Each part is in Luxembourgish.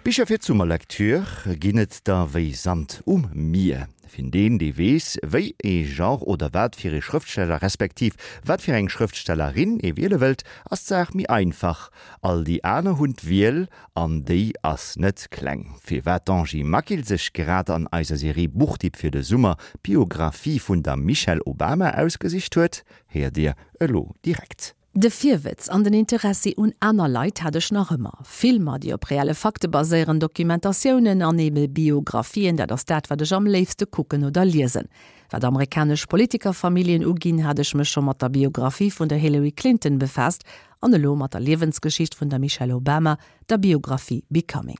Bicher fir d'Summerlektür ginn et der wéi Sand um Mier. Fir deen, dee weess, wéi ee Genre oder wat fir ee Schrëftsteller respektiv wat fir eng Schrëftstellerin ee wiele wëllt, ass d'Saach méi einfach. All déi aner hunn d'Wiel, an déi ass net kleng. Firwat d'Angie Maquil sech grad an eiser Serie Buchtipp fir de Summer d'Biographie vun der Michelle Obama ausgesicht huet, héiert Dir elo direkt. De Virwëtz an den Interessi un aner Leit hat ech nach ëmmer. Filmer, déi op reelle Fakte baséieren, Dokumentatiounen an ebe Biographien, dat ass dat, wat ech am léifste kucken oder liesen. Wat amerikanesch Politikerfamilljen uginn, hat ech mech scho mat der Biographie vun der Hillary Clinton befaasst an elo mat der Liewensgeschicht vun der Michelle Obama, der Biographie Becoming.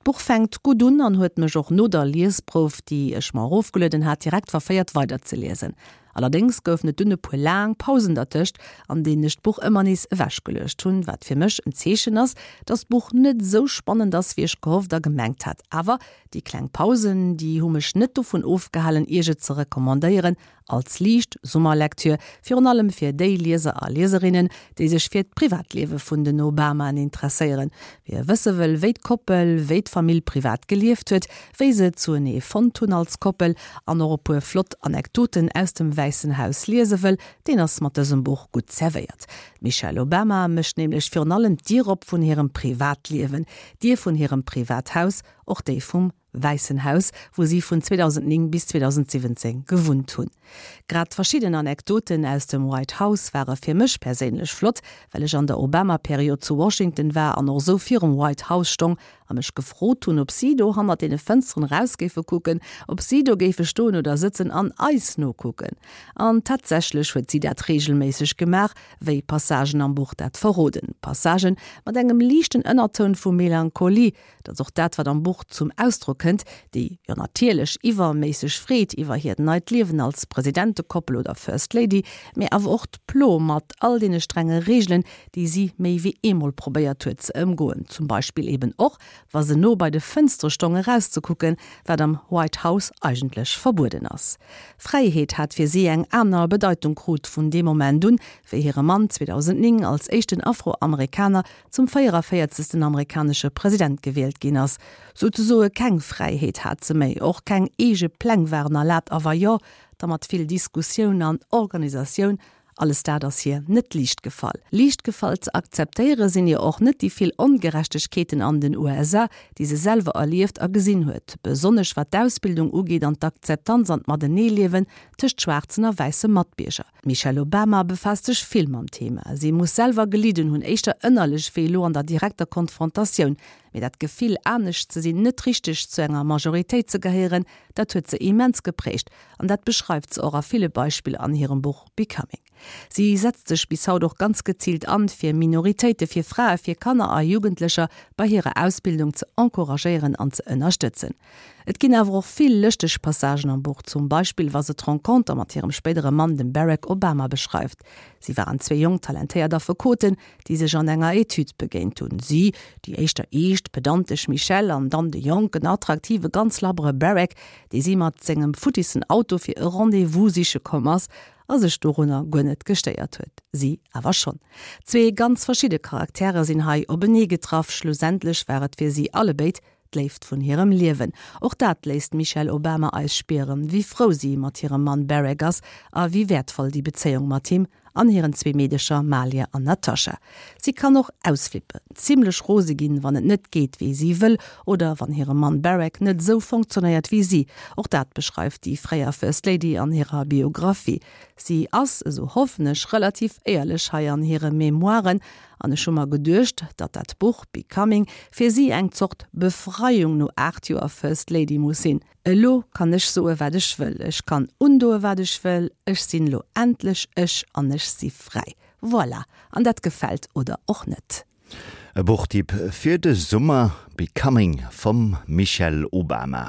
D'Buch fänkt gutt un an huet mech och no der Liesprouf, déi ech mer erofgelueden hat, direkt verféiert weiderzeliesen. Allerdéngs goufen et dunn e puer laang Pausen dertëscht, an deenen ech d'Buch ëmmer nees ewechgeluecht hunn, wat fir mech en Zeechen ass, dass d'Buch net esou spannend ass, wéi ech gehofft a gemengt hat. Awer déi kleng Pausen, déi hu mech net dovun ofgehalen, iech et ze recommandéieren als liicht Summerlektür, virun allem fir déi Lieser a Lieserinnen, déi sech fir d'Privatliewe vun den Obamaen interesséieren. Wie wësse wëll, wéi d'Koppel, wéi d'Famill privat gelieft huet, wéi se zuenee fonnt hunn als Koppel an och e puer flott Anekdoten aus dem Wäissen Haus liese wëll, deen ass mat dësem Buch gutt zerwéiert. D'Michelle Obama mécht nämlech virun allem d'Dier op vun hirem Privatliewen, d'Dier vun hirem Privathaus, och déi vum Wäissen Haus, wou si vun 2009 bis 2017 gewunnt hunn. Grad verschidden Anekdoten aus dem White House ware fir mech perséinlech flott, well ech an der Obama-Period zu Washington war an och esou virum White House stong a mech gefrot hunn, ob si do hannert deene Fënsteren eraus géife kucken, ob si do géife stoen oder sëtzen an eis nokucken. An tatsächlech huet si dat reegelméisseg gemaach, wéi Passagen am Buch dat verroden. Passagen mat engem liichten Ënnertoun vu Melancholie, Dat ass och dat, wat am Buch zum Ausdrock kënnt, déi, jo natierlech, iwwerméisseg Freed iwwer hiert neit Liewen als Presidentekoppel oder First Lady, mee awer och d'Plo mat all deene strenge Reegelen, déi si méi wéi eemol probéiert huet ze ëmgoen, zum Beispill eben och, wa se no bei de Fënstere stong erauszekucken, wat am White House eigentlech verbueden ass. Fräiheet hat fir si eng aner Bedeitung krut vun deem Moment un, wéi hire Mann 2009 als éischten Afroamerikaner zum 44. Amerikanesche President gewielt ginn ass. Souzesoe keng Fräiheet hat se méi, och keng eege Pläng waren erlaabt a wa jo, da mat vill Diskussioun an Organisatioun. Alles dat ass hir net liicht gefall. Liicht gefall ze akzeptéiere sinn ihr och net déi vill Ongerechtegkeeten an den USA, déi se selwer erlieft a gesinn huet, besonnesch wat d'Ausbildung ugeet an d'Akzeptanz an d'Mateneeliewen tëscht schwaarzen a wäisse Matbierger. D'Michelle Obama befaasst sech vill mam Thema. Si muss selwer gelidden hunn, éischter ënnerlech wéi elo an der direkter Konfrontatioun. Mee dat Gefill, anescht ze sinn, net richteg zu enger Majoritéit ze gehéieren, dat huet se immens geprägt. An dat beschreift se och a ville Beispiller an hirem Buch Becoming. Si setzt sech bis haut och ganz geziilt an, fir Minoritéite, fir Frae, fir Kanner a Jugendlecher bei hirer Ausbildung ze encouragéieren an ze ënnerstëtzen. Et ginn awer och vill lëschteg Passagen am Buch, zum Beispill wa se d'Renconter mat hirem spéidere Mann, dem Barack Obama, beschreift. Si waren zwee jonk talentéiert Affekoten, déi sech an enger Etüd begéint hunn. Si, déi éischter eescht, pedantesch Michelle an dann de jonken, attraktive, ganz labbere Barack, dee si mat sengem futtissen Auto fir e Rendez-vous siche komm ass a sech dorunner guer net gestéiert huet. Si awer schonn. Zwee ganz verschidde Charaktere sinn hei openee getraff. Schlussendlech war et fir si allebéid D'Léift vun hirem Liewen. Och dat léisst d'Michelle Obama eis spieren, wéi frou si mat hirem Mann Barack ass a wéi wäertvoll déi Bezéiung mat him an hiren zwee Meedecher Malia an Natasha. Si kann och ausflippen, zimmlech rose ginn, wann et net geet wéi si wëll oder wann hire Mann Barack net esou fonctionnéiert wéi si. Och dat beschreift déi fréier First Lady an hirer Biographie. Si ass, esou hoffen ech, relativ éierlech hei an hire Memoiren An ech hu mer geduecht, datt dat Buch Becoming fir si eng Zort Befreiung no 8 Joer First Lady muss sinn. Elo kann ech soe wat ech wëll, ech kann undoe wat ech wëll, ech sinn elo endlech ech an ech si fräi. Voilà, an dat gefält oder och net. E Buchtipp fir de Summer, Becoming vum Michelle Obama.